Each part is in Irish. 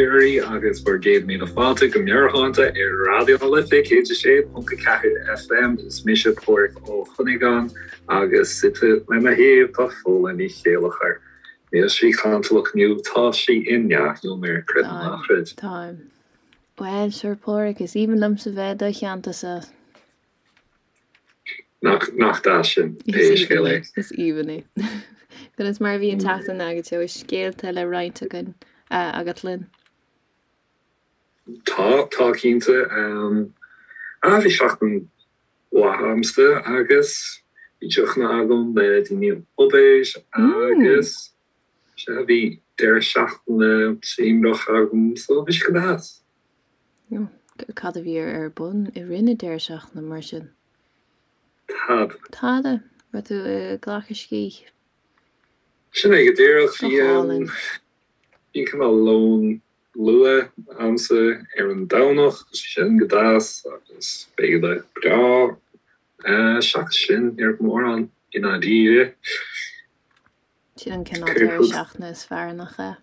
éisteoirí agus bhur gcéad míle fáilte go Meabhairshláinte ar Raidió na Life 106.4 FM. Is mise Pádhraic Ó Cuinneagáin agus suite le mo thaobh tá Fódhla Ní Chéilleachair. Níl sí cantalach inniu, tá sí i ndea-ghiúmar, creid nó ná creid. Táim. Bhuel, sure Pádhraic, is aoibhinn liomsa bheith i do theannta-sa. Nach, nach deas sin, pé scéal é. Is aoibhinn é. Conas mar a bhí an tseachtain agat, an bhfuil scéalta le roinnt againn, agat linn? Tá, tá cinnte. Ah, bhí seachtain mhaith agamsa agus bhí deochanna agam le daoine ón obair agus sea, bhí deireadh seachtaine suaimhneach agam so bhí sé go deas. Cad a bhí ar bun i rith na deireadh seachtaine mar sin? Tada. Tada? Raibh tú ag glacadh scíth? Sin é go díreach. Bhí bhí cineál lón luath a'msa ar an Domhnach, bhí sin go deas agus béile breá. Seachas sin, ní raibh mórán i ndáiríre. Sin an cineál deireadh seachtaine is fearr, nach ea?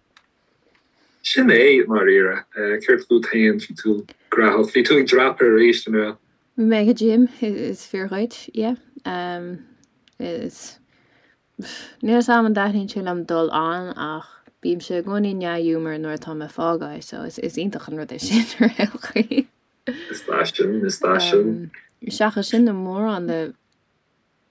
Sin é, i ndáiríre. Céard fút féin? Bhí tú graitheach. Bhí tú ag dreapadh arís, an raibh? Bhí mé ag an gym, is fíor dhuit, yeah. Is, níl 'fhios a'm an dtaitníonn sé liom dul ann ach bímse i gcónaí i ndea-ghiúmar nuair atá mé ag fágáil so is iontach an rud é sin ar aon chaoi. Is deas sin, is deas sin. Seachas sin, níl mórán le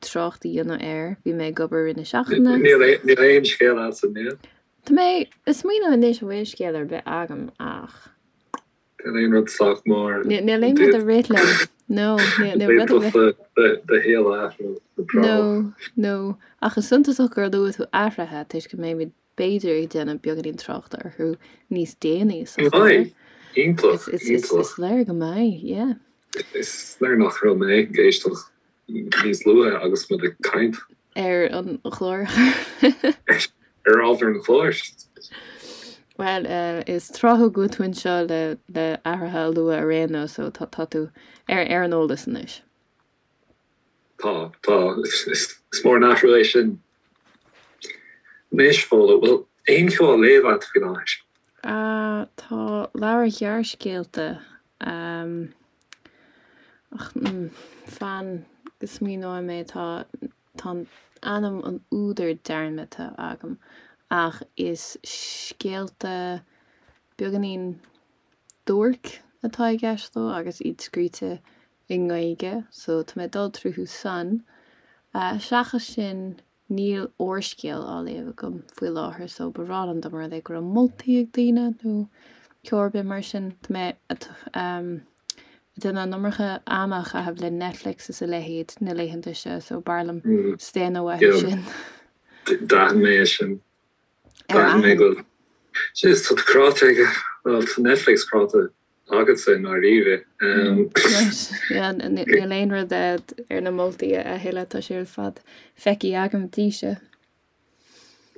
trácht a dhéanamh air. Bhí mé ag obair i rith na seachtaine. Níl aon scéal agatsa, níl? Tá mé ag smaoineamh anois an bhfuil scéal ar bith agam ach. Níl aon rud sách mór. Níl aon rud a rith liom. No, níl rud a rith. Do shaol a athrú go brách. No, no. Ach is suntasach gur luaigh tú athruithe toisc go mbeimid b'fhéidir ag déanamh beagáinín tráchta orthu níos déanaí sa chlár. Mbeidh! Iontach, iontach. Is léir go mbeidh, yeah. Is léir nach raibh mé ag éisteacht níos luaithe agus muid ag caint. Ar an chlár. Ar ábhar an chláir. Bhuel, is tráthúil go bhfuil tú anseo le hathruithe a lua ar aon nós, so tá tú ar an eolas anois. Tá, tá. Is mór an athrú é sin. Anois, Fódhla, bhfuil aon cheo á léamh agat faoi láthair? Tá leabhar ghearrscéalta, ach fan go smaoineoidh mé, tá, tá ainm an údair dearmadta agam, ach is scéalta beagáinín duairc atá i gceist leo agus iad scríte i nGaeilge so tá mé ag dul tríothu san. Seachas sin níl úrscéal á léamh agam faoi láthair so ba bhreá liom dá mba rud é go raibh moltaí ag daoine nó ceo ar bith mar sin. Tá mé ag déanamh an iomarca ama a chaitheamh le Netflix is a leithéid na laethanta seo so b'fhearr liom staonadh uathu sin. D'aithin mé é sin. D'aithin mé go bhfuil. Jeez, tá tú cráite aige. Bhuel, tá Netflix cráite agatsa i ndáiríre. Níl aon rud ar na moltaí a thuilleadh, tá sé ar fad feicthe agam go dtí seo.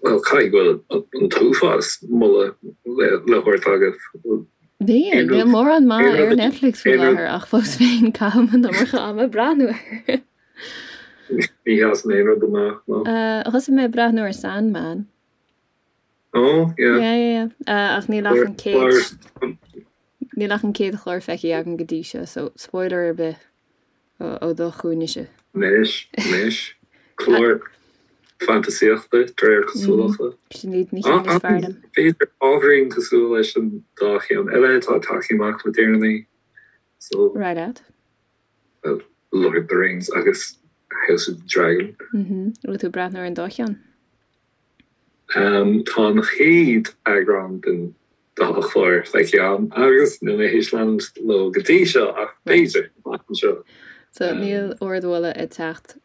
Bhuel, caithfidh go bhfuil an t-uafás moladh le thabhairt agat. Níl, níl mórán maith ar Netflix faoi láthair ach fós féin caithim an iomarca ama ag breathnú air. Ní sheasann aon rud amach, ná. Thosaigh mé ag breathnú ar Sandman. Oh, yeah. Yeah, yeah, yeah. Ach níl ach an chéad níl ach an chéad chlár feicthe agam go dtí seo, so spoiler ar bith ó do chúinnese. Anois, anois. Clár fantaisíochta, de réir cosúlachta. Sin iad na cinn is fearr liom. B'fhéidir ábhairín cosúil leis an dá cheann eile atá tagtha amach le deireanaí. So. Right out. Lord of the Rings agus House of the Dragon. Bhfuil tú ag breathnú ar an dá cheann? Tá an chéad eagrán den dá chlár feicthe agam agus níl mé théis leanúint leo go dtí seo ach b'fhéidir, amach anseo. So níl ardmholadh ag teacht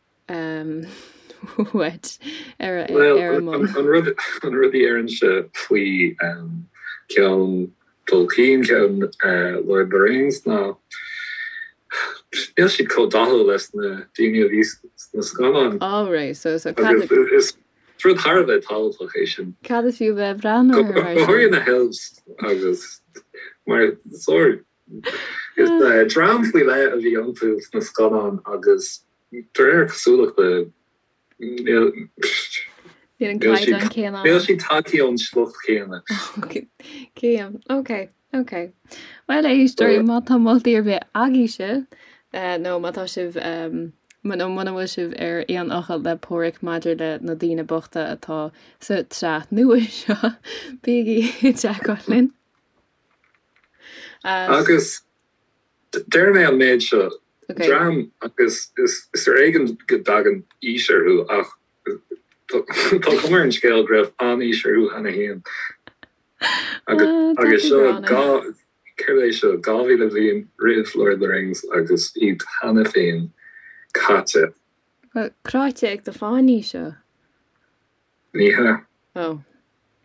uait ar an mbun. Bhuel, an rud an rud a déarfainnse faoi ceann Tolkien, ceann Lord of the Rings ná níl siad chomh dathúil leis na daoine a bhí sna scannáin. Oh right, so so cad Agus is rud thar a bheith tábhachtach é sin. Cad is fiú bheith ag breathnú air mar sin? Go háirithe na hElves agus mar sórt is dream faoi leith a bhí iontu sna scannáin agus de réir cosúlachta níl. Níl an caighdeán céanna ann. Níl siad tagtha ón sliocht chéanna. Cím. Ok, ok. Bhuel, a éisteoirí, má tá moltaí ar bith agaibhse, nó má tá sibh, nó muna bhfuil sibh ar aon fhocal le Páraic maidir le na daoine bochta atá sa tsraith nua seo, bígí i dteagmháil linn. Agus deir mé an méid seo, dream agus is ar éigean go dtagann aois orthu ach tá cuma ar an scéal go raibh an-aois orthu cheana féin. Agus seo céard é seo, 2,000 bliain roimh Lord of the Rings agus iad cheana féin caite. Cráite ag do fáinní seo. Ní hea. Ó.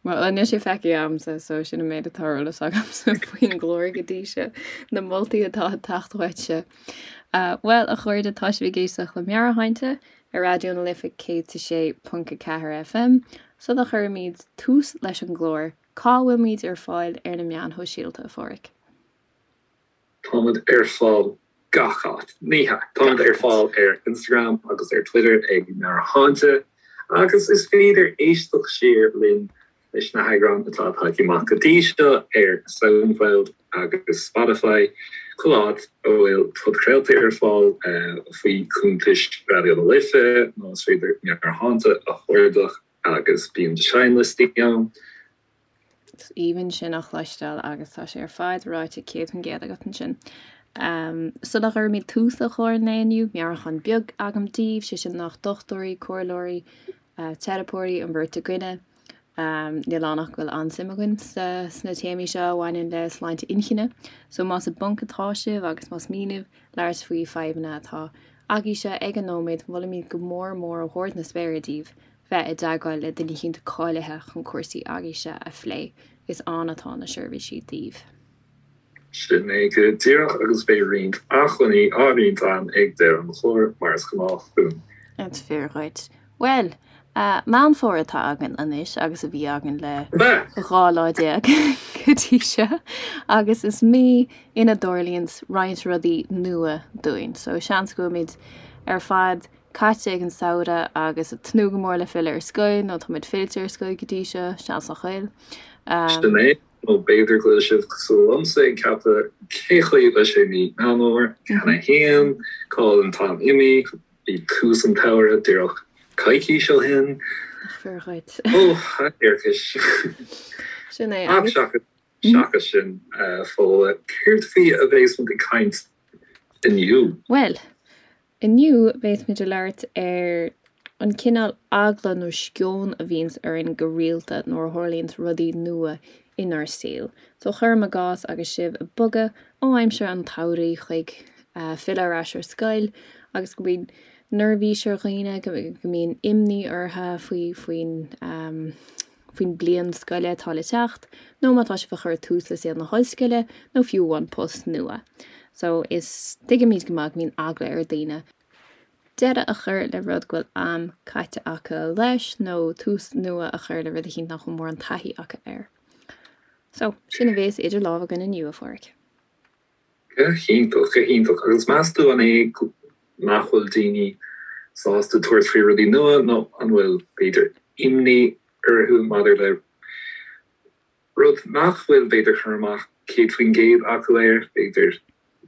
Bhuel, níl sé feicthe agamsa, so sin an méid atá ar eolas agamsa faoin gclár go dtí seo, na moltaí atá ag teacht uaitse. Bhuel, a chairde, tá sibh ag éisteacht le Meabhairshláinte ar Raidió na Life 106.4 FM. Sula gcuirimid tús leis an gclár, cá bhfuilimid ar fáil ar na meáin shóisialta, a Pháraic? Táimid ar fáil gach áit. Ní hea. Táimid ar fáil ar Instagram agus ar Twitter ag Meabhairshláinte agus is féidir éisteacht siar linn leis na heagráin atá tagtha amach go dtí seo ar Soundcloud agus Spotify, chuile áit a bhfuil podchraoltaí ar fáil faoi chuntais Raidió na Life nó is féidir Meabhairshláinte a chuardach agus bíonn seinnliostaí ann. Is aoibhinn sin a chloisteáil agus tá sé ar fad ráite 100% agat ansin. Sula gcuirimid tús le clár an lae inniu, meabhrúchán beag agam daoibh, sé sin nach dochtúirí, comhairleoirí, teiripeoirí an bheirt againne. Níl ann ach go bhfuil an-suim againn sna téamaí seo a bhaineann le sláinte inchinne. So más i bponc atá sibh agus más mian libh labhairt faoi fadhbanna atá agaibhse ag an nóiméad, molaimid go mór mór ó ard na spéire daoibh bheith i dteagmháil le duine eicínt cáilithe chun cúrsaí agaibhse a phlé. Is ann atá na seirbhísí daoibh. Sin é go díreach agus beidh roinnt acmhainní á roinnt againn ag deireadh an chláir, mar is gnách dúinn. Is fíor dhuit. Bhuel, Meán Fómhair atá againn anois agus a bhí againn le 12 lá go dtí seo agus is mí ina dtarlaíonn roinnt rudaí nua dúinn. So seans go bhfuilimid ar fad caite ag an samhradh agus ag tnúth go mór le filleadh ar scoil nó tá muid fillte ar scoil go dtí seo, seans nach bhfuil. Sin é, nó b'fhéidir go bhfuil sibh cosúil liomsa ag ceapadh cén chaoi a bhfuil sé mí Meán Fómhair cheana féin, cá bhfuil an t-am imithe, bhí tús an tsamhraidh díreach coicís ó shin. Nach fíor dhuit. Ó, a thiarcais. Sin é. Ach seachas sin, Fódhla, céard faoi a bheas muid ag caint inniu? Bhuel, Inniu beidh muid ag labhairt ar an cineál eagla nó sceon a bhíonns orainn go rialta nuair a tharlaíonns rudaí nua inár saol. So cuirim i gcás agus sibh ag bogadh ó aimsir an tsamhraidh chuig filleadh ar ais ar scoil agus go mbíonn neirbhís ar dhaoine, go mbíonn imní orthu faoi faoin faoin bliain scoile atá le teacht, nó má tá sibh ag cur tús le saol na hollscoile, nó fiú amháin post nua. So, is tuigimid go maith go mbíonn eagla ar daoine deireadh a chur le rud go bhfuil am caite acu leis, nó tús nua a chur le rud eicínt nach bhfuil mórán taithí acu air. So, sin a bhéas idir lámha againn inniu, a Pháraic. Go hiontach, go hiontach. Agus meas tú an é nach bhfuil daoine sásta tabhairt faoi rudaí nua nó an bhfuil, b'fhéidir, imní orthu maidir le rud nach bhfuil, b'fhéidir, cur amach 100% acu air, b'fhéidir,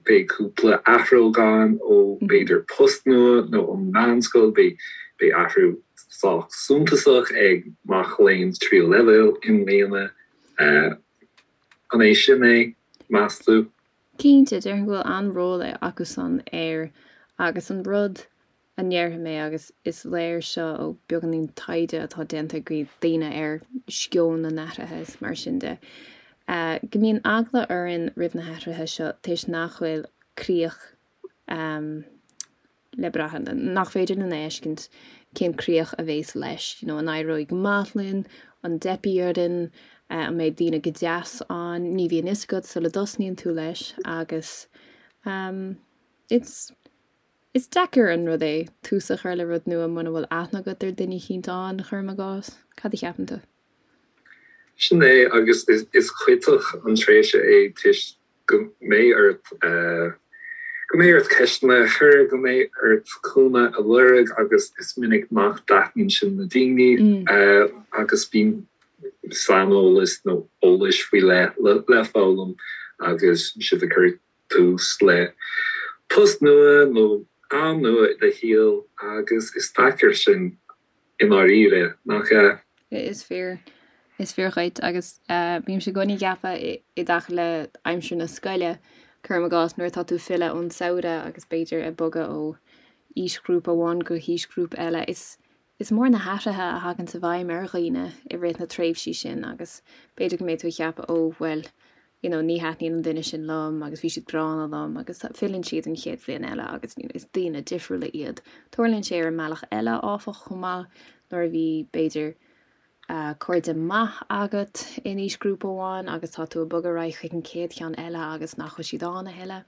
beidh cúpla athróg ann ó b'fhéidir post nua nó ón meánscoil, beidh beidh athrú sách suntasach ag mac léinn tríú leibhéal i mbliana. An é sin é, meas tú? Cinnte, déarfainn go bhfuil an-ról acusan air agus an rud a ndéarfaidh mé, agus is léir seo ó beagáinín taighde atá déanta ag daoine ar sceon na n-athruithe is mar sin de, go mbíonn eagla orainn roimh na hathruithe seo toisc nach bhfuil críoch le brath, nach féidir linn a fheiscint cén críoch a bhéas leis, you know, an éireoidh go maith linn, an dteipfidh orainn, an mbeidh daoine go deas ann, ní bhíonn fhios agat sula dtosnaíonn tú leis agus um, it's, is deacair an rud é tús a chur le rud nua muna bhfuil aithne agat ar duine eicínt ann, cuirim i gcás. Cad a cheapann tú? Sin é agus is, is cuideach an tréimhse é toisc go mbeidh ort. go mbeidh ort ceisteanna a chur, go mbeidh ort cúnamh a lorg agus is minic nach dtaitníonn sin le daoine agus bíonn saineolas nó eolais faoi leith le foghlaim agus sibh ag cur tús le post nua nó am nua i do shaol agus is deacair sin i ndáiríre, nach ea? Is fíor. Is fíor dhuit agus bímse i gcónaí ag ceapadh i dtaca le aimsir na scoile, cuirim i gcás nuair atá tú ag filleadh ón samhradh agus b'fhéidir ag bogadh ó aoisghrúpa amháin go haoisghrúpa eile, is is mór na hathruithe a thagann i bhfeidhm ar dhaoine i rith na tréimhsí sin agus b'fhéidir go mbeidh tú ag ceapadh ó bhuel you know, ní thaitníonn an duine sin liom agus bhí siad gránna liom agus filleann siad an chéad bhliain eile agus you know, is daoine difriúla iad. Tarlaíonn sé ar an mbealach eile áfach chomh maith nuair a bhí b'fhéidir uh, cairde maith agat in aoisghrúpa amháin agus tá tú ag bogadh ar aghaidh chuig an chéad cheann eile agus nach bhfuil siad ann a thuilleadh.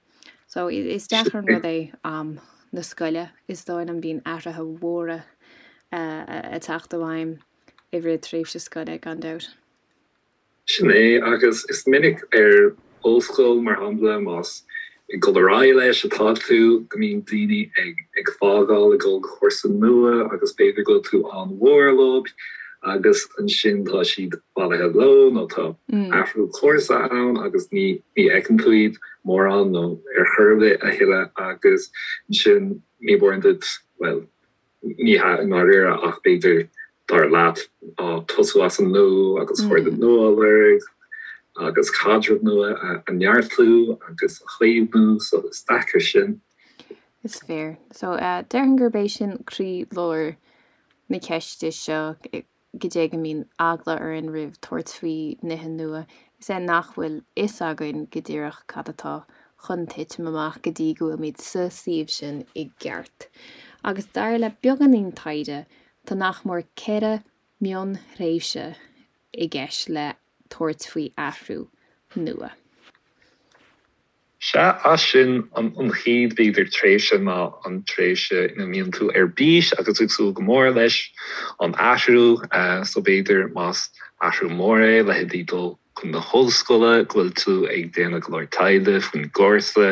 So is deacair an rud é am na scoile, is dóigh liom bíonn athruithe mhóra uh, ag teacht i bhfeidhm i rith tréimhse scoile gan dabht. Sin é, agus is minic ar ollscoil, mar shampla, más ag dul ar aghaidh leis atá tú, go mbíonn daoine ag fágáil, ag dul go cúrsa nua agus b'fhéidir go bhfuil tú an-mhór leo agus ansin tá siad bailithe leo nó tá athrú cúrsa ann agus ní fheiceann tú iad mórán nó ar chor ar bith a thuilleadh agus ansin ní mór duit, bhuel, Ní hea i ndáiríre ach b'fhéidir dar leat tosú as an nua agus cairde nua a lorg agus caidreamh nua a neartú agus a chaomhnú so is deacair sin. Is fíor. So déarfainn gurb é sin croí-lár na ceiste seo. goidé go mbíonn eagla orainn roimh tabhairt faoi nithe nua, is é nach bhfuil fhios againn go díreach cad atá chun titim amach go dtí go bhfuilimid sa suíomh sin i gceart. Agus dar le beagáinín taighde, tá nach mór 4 mhionthréimhse i gceist le tabhairt faoi athrú nua. Sea, as sin, an chéad, b'fhéidir, tréimhse ná an tréimhse ina mbíonn tú ar bís agus ag súil go mór leis an athrú. So b'fhéidir, más athrú mór é, leithéidí dul chun na hollscoile, go bhfuil tú ag déanamh go leor taighde faoin gcúrsa,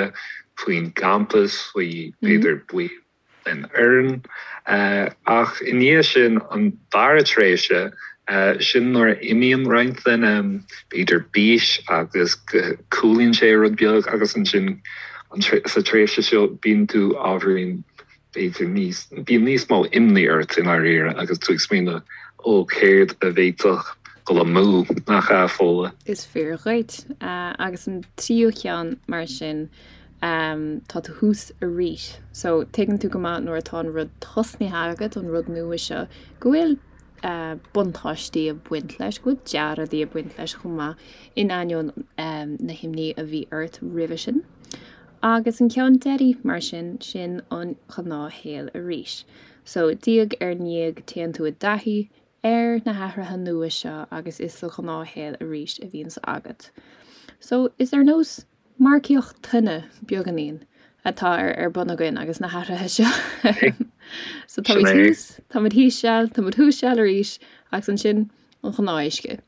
faoin gcampas, faoi, b'fhéidir, baill den fhoireann. Ach i ndiaidh sin, an dara tréimhse, sin nuair a imíonn roinnt den, b'fhéidir, bís agus go cúlaíonn sé rud beag agus ansin sa tréimhse seo bíonn tú ábhairín, b'fhéidir, níos, bíonn níos mó imní ort i ndáiríre agus tú ag smaoineamh, ó, céard a bhféadfadh dul amú, nach ea, Fódhla? Is fíor dhuit. Agus an tríú ceann mar sin, tá tú thuas arís. So, tuigeann tú go maith nuair atá an rud tosnaithe agat, an rud nua seo, go bhfuil buntáistí ag baint leis, go bhfuil dea-rudaí ag baint leis chomh maith, in ainneoin na himní a bhí ort roimhe sin. Agus an ceann deiridh, mar sin, sin an gnáthshaol arís. So, diaidh ar ndiaidh téann tú i dtaithí ar na hathruithe nua seo agus is sa ghnáthshaol arís a bhíonns agat. So, is ar nós Marcaíocht toinne, beagáinín, atá ar bun againn agus na hathruithe seo. So táimid thuas, táimid thíos seal, táimid thuas seal arís agus ansin an gnáth-uisce.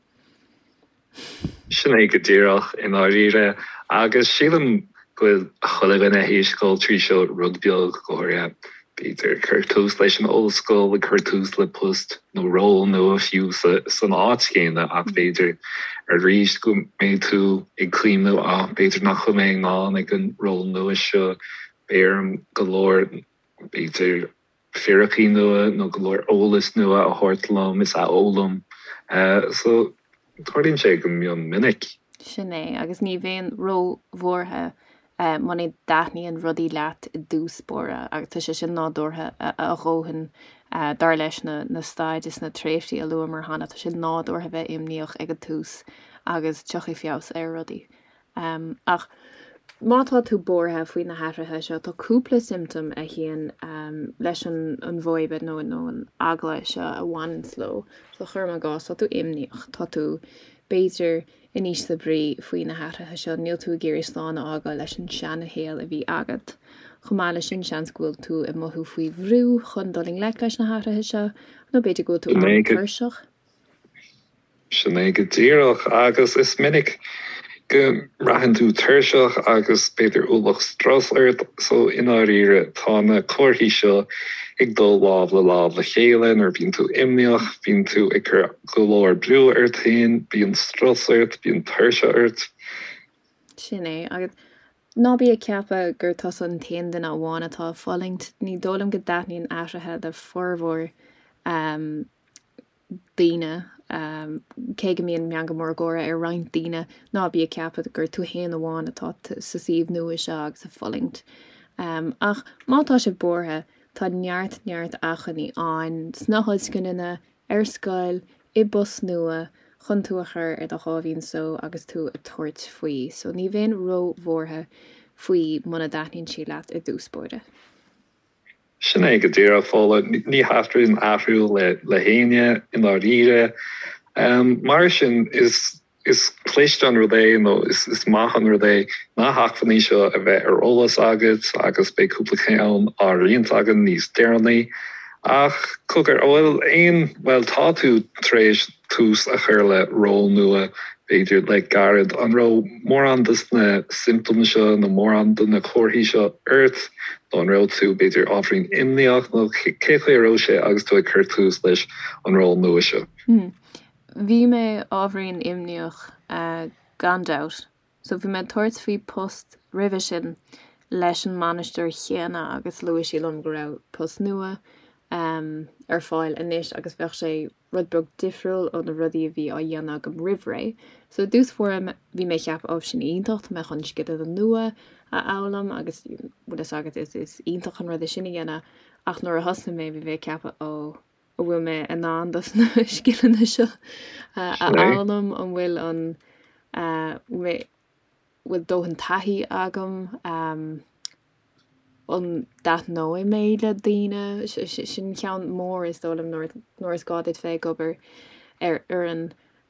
Sin é go díreach, i ndáiríre. Agus sílim go bhfuil chuile dhuine théis dul trí seo rud beag, go háirithe b'fhéidir ag cur tús leis an ollscoil, ag cur tús le post nó ról nua fiú san áit chéanna ach b'fhéidir arís go mbeidh tú ag cuimhniú ah b'fhéidir nach bhfuil mé in ann ag an ról nua seo, beidh orm go leor b'fhéidir fíricí nua nó go leor eolas nua a thabhairt liom is a fhoghlaim. So tarlaíonn sé go mion minic. Sin é, agus ní bheinn ró-bhuartha muna dtaitníonn rudaí leat i dtús báire, agus tá sé sin nádúrtha a dhóthain, dar leis na staid is na tréimhsí a luamar cheana, tá sé nádúrtha bheith imníoch ag an tús agus tiocfaidh feabhas ar rudaí. Ach má tá tú buartha faoi na hathruithe seo, tá cúpla siomptóm a théann leis an bhfóibe nó an eagla seo a bhaineanns leo. So cuirim i gcás, tá tú imníoch, tá tú b'fhéidir in ísle brí faoi na hathruithe seo, níl tú ag iarraidh slán a fhágáil leis an seana-shaol a bhí agat. Chomh maith leis sin, seans go bhfuil tú ag mothú faoi bhrú chun dul i ngleic leis na hathruithe seo, nó b'fhéidir go bhfuil tú an-tuirseach. Sin é go díreach, agus is minic. go mbraitheann tú tuirseach agus b'fhéidir ualach strus ort so i ndáiríre tá na comharthaí seo ag dul lámh le lámh le chéile, nuair a bhíonn tú imníoch bíonn tú ag cur go leor brú ort féin, bíonn strus ort, bíonn tuirse ort. Sin é, agus ná bí ag ceapadh gur tusa an t-aon duine amháin atá ag fulaingt, ní dóigh liom go dtaitníonn athruithe le formhór daoine, cé go mbíonn meangadh mór gáire ar roinnt daoine, ná bí ag ceapadh gur tú fhéin amháin atá sa suíomh nua seo agus ag fulaingt. Ach má tá sibh buartha, tá neart neart acmhainní ann sna hollscoileanna, ar scoil, i bpost nua, chun tú a chur ar do sháimhín só agus tú ag tabhairt faoi. So ní bheinn ró-bhuartha faoi muna dtaitníonn sé leat i dtús báire. Sin é go díreach, Fódhla. Ní thaitníonn athrú le héinne i ndáiríre. Mar sin, is cliste an rud é, nó is maith an rud é, na hacmhainní seo a bheith ar eolas agat agus beidh cúpla ceann á roinnt againn níos deireanaí. Ach cogar, an bhfuil aon, bhuel, tá tú tar éis tús a chur le ról nua, b'fhéidir, le gairid. An raibh mórán de na siomptóim seo nó mórán de na comharthaí seo ort nó an raibh tú, b'fhéidir, ábhairín imníoch nó cé chaoi a raibh sé agus tú ag cur tús leis an ról nua seo? Bhí mé ábhairín imníoch, gan dabht. So bhí mé ag tabhairt faoi post roimhe sin leis an mbainisteoir chéanna agus luaigh sí liom go raibh post nua ar fáil anois agus bheadh sé rud beag difriúil ó na rudaí a bhí á dhéanamh agam roimh ré. So i dtús báire bhí mé ag ceapadh oh sin iontach, tá mé chun scileanna nua a fhoghlaim agus bhfuil fhios agat is is iontach an rud é sin a dhéanamh ach nuair a thosnaigh mé bhí mé ag ceapadh oh an bhfuil mé in ann dos na scileanna seo a fhoghlaim, an bhfuil an bhfuil dóthain taithí agam, an dtaitneoidh mé le daoine, sin ceann mór is dóigh liom nuair is gá duit bheith ag obair ar fhoireann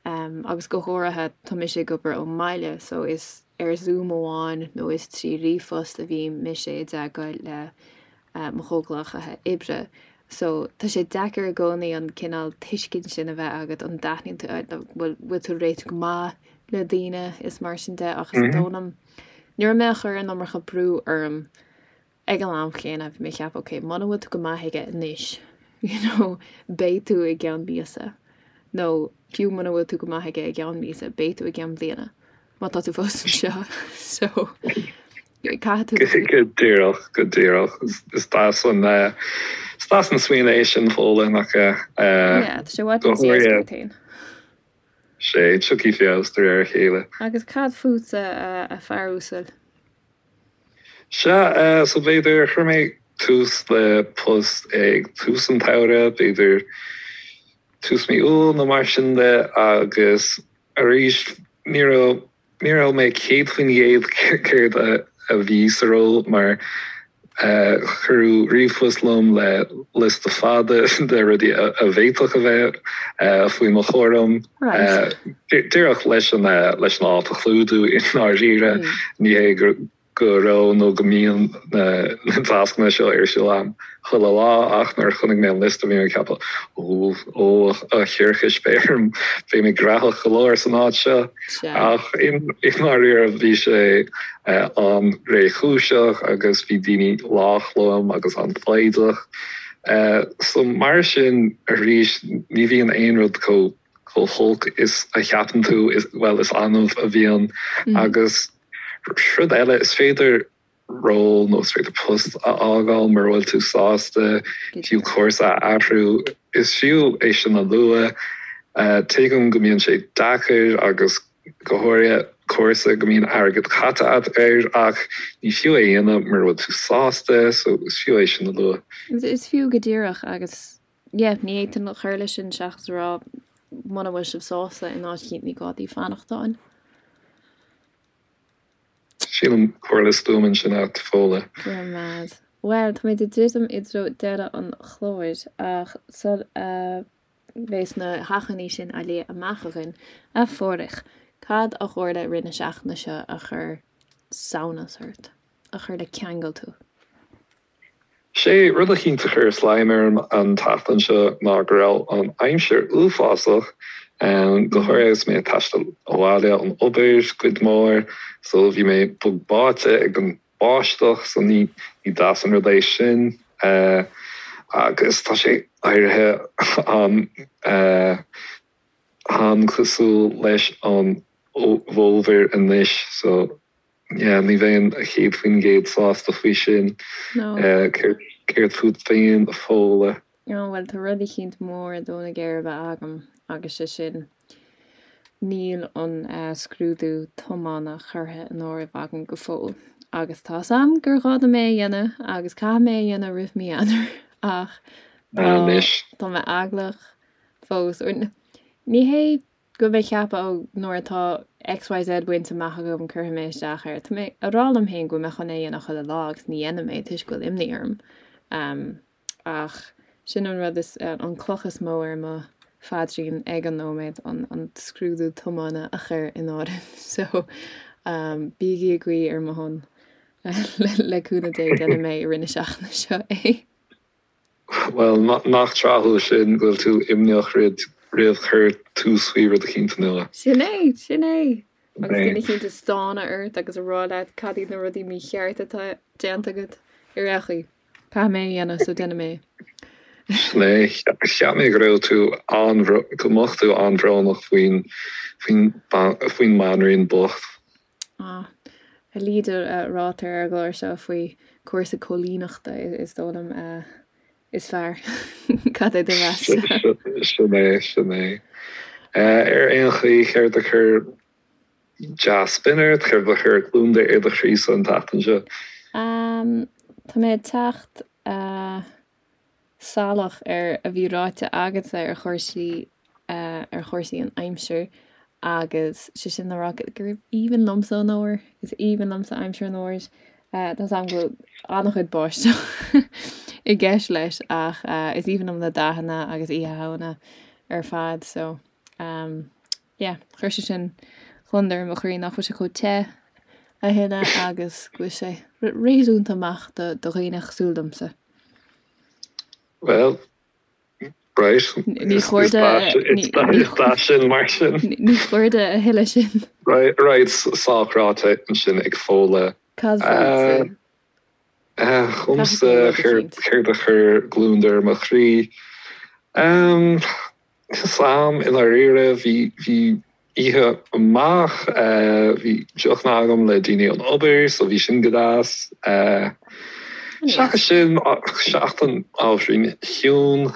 agus go háirithe tá mise ag obair ón mbaile so is ar Zoom amháin nó is trí ríomhphost a bhíonn mise i dteagmháil le mo chomhghleacaithe oibre. So, tá sé deacair i gcónaí an cineál tuiscint sin a bheith agat, an dtaitníonn tú, bhfuil, bhfuil tú ag réiteach go maith le daoine is mar sin de ach is dóigh liom, ní raibh mé ag cur an iomarca brú orm ag an am chéanna, bhí mé ag ceapadh, ok, muna bhfuil tú go maith aige anois, you know, beidh tú i gceann míosa, nó fiú muna bhfuil tú go maith aige i gceann míosa, beidh tú i gceann bliana. má tá tú fós anseo. So, caithfidh tú. Go díreach, go díreach. Is deas an, is deas an smaoineamh é sin, Fódhla, nach ea? Yeah, tá sé i bhfad níos éasca duit féin. Sea, tiocfaidh feabhas de réir a chéile. Agus cad fútsa, a fhear uasail? Sea, so b'fhéidir, chuir mé tús le post ag tús an tsamhraidh, b'fhéidir tús mí Iúil nó mar sin de, agus Arís, ní raibh, ní raibh mé 100% céard a bhí sa ról mar cuireadh ríomhphost liom le liosta fada de rudaí a bhféadfadh a bheith faoi mo chúram. Díreach leis an leis an áit a chlúdú i ndáiríre, ní hé go go raibh nó go mbíonn na tascanna seo ar siúl agam chuile lá ach nuair a chonaic mé an liosta bhí mé ag ceapadh ó, ó, a thiarcais, beidh orm, beidh mé graitheach go leor san áit seo. Ach i ndáiríre bhí sé an-réchúiseach agus bhí daoine lách liom agus an-fhoighdeach. So mar sin arís ní bhíonn aon rud chomh chomh holc is a cheapann tú, bhuel is annamh a bhíonn agus Rud eile, is féidir ról nó is féidir post a fhágáil mura bhfuil tú sásta, fiú cúrsa a athrú. Is fiú é sin a lua. Tuigim go mbíonn sé deacair agus go háirithe cúrsa go mbíonn airgead caite agat air ach ní fiú é a dhéanamh mura bhfuil tú sásta, so is fiú é sin a lua. Is fiú go díreach agus yeah, ní fhéadfainn a chur leis sin seachas a rá muna bhfuil sibh sásta in áit eicínt ní gá daoibh fanacht ann. Sílim comhairle stuama ansin agat, Fódhla. Go raibh maith. Bhuel, táimid ag druidim i dtreo deireadh an chláir, ach sul a bheas na hachainí sin á léamh amach againn, a Pháraic, cad a tharla i rith na seachtaine seo a chuir samhnas ort, a chuir le ceangal tú? Sé rud eicínt a chuir slagham orm an tseachtain seo ná go raibh an aimsir uafásach. Go háirithe agus mé ag taisteal abhaile ón obair cuid mhór so bhí mé bog báite ag an báisteach so ní deas an rud é sin agus tá sé éirithe an an-cosúil leis an bhfómhar anois so yeah ní bheinn 100% sásta faoi sin. Céard fút féin a Fódhla? Ó bhuel tá rud eicínt mór ag dó na geirbe agam agus sé sin níl an scrúdú tiomána curtha in áireamh agam go fóill agus tá 's a'm gur ghá dom é a dhéanamh agus caithfidh mé é a dhéanamh roimh mí Eanáir ach tá mé eaglach fós. Ní hé go bhfuil mé ag ceapadh ó nuair atá XYZ bainte amach agam cuirfidh mé isteach air. Tá mé ag rá liom féin go bhfuil mé chun é a dhéanamh chuile lá agus ní dhéanaim é toisc go bhfuil imní orm. Ach sin an rud is, an cloch is mó ar mo phaidrín ag an nóiméad, an an scrúdú tiomána a chur in áireamh. So bígí ag guí ar mo shon. Le cúnamh Dé déanfaidh mé i rith na seachtaine seo é. Bhuel, nach tráthúil sin go bhfuil tú imníoch roimh chur tús faoi rud eicínt nua. Sin é! Sin é! Agus duine eicínt ag stánadh ort agus ag rá leat cad iad na rudaí míchearta atá déanta agat. Ar aon chaoi, caithfidh mé é a dhéanamh so déanfaidh mé é. Sin é. Cheap mé go raibh tú an, go mbeadh tú an-bhrónach faoin, faoin, faoin mbanríon bocht. Ah, a leithéid a ráitear ar an gclár seo faoi chúrsaí cóilíneachta is dóigh liom is fearr. Cad é do mheas? Sin é, sin é. Ar aon chaoi, céard a chuir dea-spion ort, céard a chuir gliondar ar do chroí-sa an tseachtain seo? Tá mé ag teacht salach ar a bhí ráite agatsa ar chúrsaí ar chúrsaí an aimsir agus sé sin le rá gur aoibhinn liomsa an fhómhar, is aoibhinn liomsa aimsir an fhómhair. Tá 's agam go bhfuil an-chuid báisteach i gceist leis ach is aoibhinn liom na dathanna agus Oíche Shamhna ar fad so yeah chuir sé sin gliondar ar mo chroí nach bhfuil sé chomh te a thuilleadh agus go bhfuil sé réasúnta maith do dhaoine cosúil liomsa. Bhuel, right. Ní chóir do. Is sin mar sin. Ní chóir do a thuilleadh sin. Right, right, sách ráite ansin ag Fódhla. Cad fútsa? Dhomsa, céard a chuir gliondar ar mo chroí? 'S a'm, i ndáiríre, bhí, bhí oíche amach, bhí deochanna agam le daoine ón obair, so bhí sin go deas. Seachas sin, seachtain ábhairín chiúin,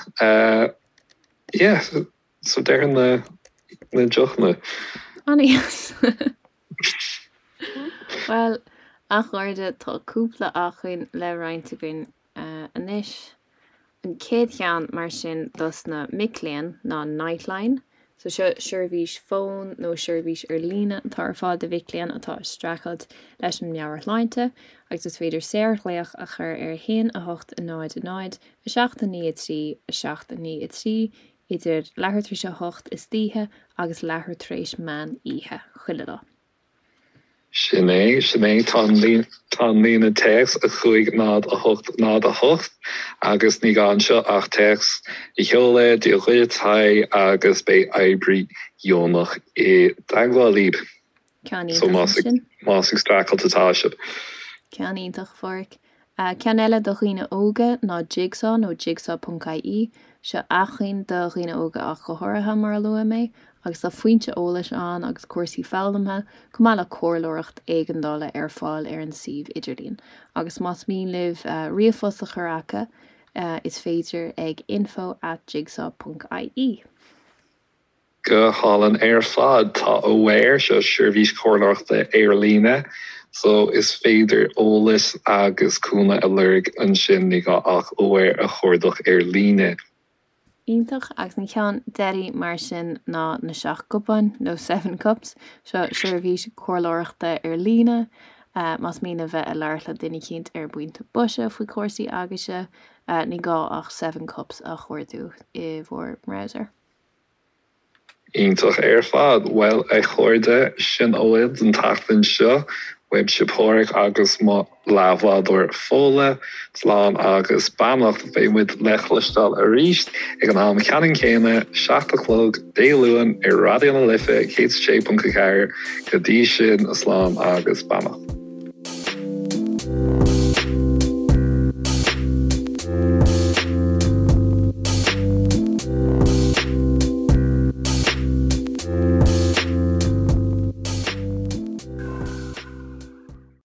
yeah, so déarfainn na, na deochanna. An-dheas. Bhuel, a chairde, tá cúpla acmhainn le roinnt againn anois. An chéad cheann mar sin dos na mic léinn ná Nightline. So seo seirbhís fóin nó seirbhís ar líne atá ar fáil do mhic léinn atá ag streachailt leis an meabhairshláinte agus is féidir saorghlaoch a chur ar 1 8 0 0 7 9 3 7 9 3 idir leathuair tar éis a hocht istoíche agus leathuair tar éis meán oíche chuile lá. Sin é, sin é. Tá an tá an líne téacs 5 0 8 0 8 agus ní gá anseo ach téacs a sheoladh, Dia dhuit, haigh agus beidh oibrí deonach i dteagmháil libh. Ceann So iontach más ag ansin. más ag streachailt atá sibh. Ceann iontach, a Pháraic. Ceann eile do dhaoine óga ná Jigsaw nó jigsaw.ie. Seo acmhainn do dhaoine óga ach go háirithe, mar a luaigh mé, agus tá foinse eolais ann agus cúrsaí foghlamtha, chomh maith le comhairleoireacht éigeandála ar fáil ar an suíomh idirlín. Agus más mian libh ríomhphost a chur acu, is féidir ag info at jigsaw ponc ie. Go hálainn ar fad. Tá Aware, seo seirbhís comhairleoireachta ar líne, so is féidir eolas agus cúnamh a lorg ansin, ní gá ach Aware a chuardach ar líne. Iontach. Agus an ceann deiridh mar sin ná na Seacht gCupán, nó Seven Cups. Seo seirbhís comhairleoireachta ar líne. Más mian libh bheith ag labhairt le duine eicínt ar an bpointe boise faoi chúrsaí eagaise, ní gá ach Seven Cups a chuardú i bhur mbrowser. Iontach ar fad. Bhuel, a chairde, sin a bhfuil don tseachtain seo. Uaimse Páraic agus mo leathbhádóir Fódhla, slán agus beannacht. Beidh muid le cloisteáil arís ag an am ceannann céanna, 7 a chlog, Dé Luain, ar Raidió na Life 106.4. Go dtí sin, slán agus beannacht.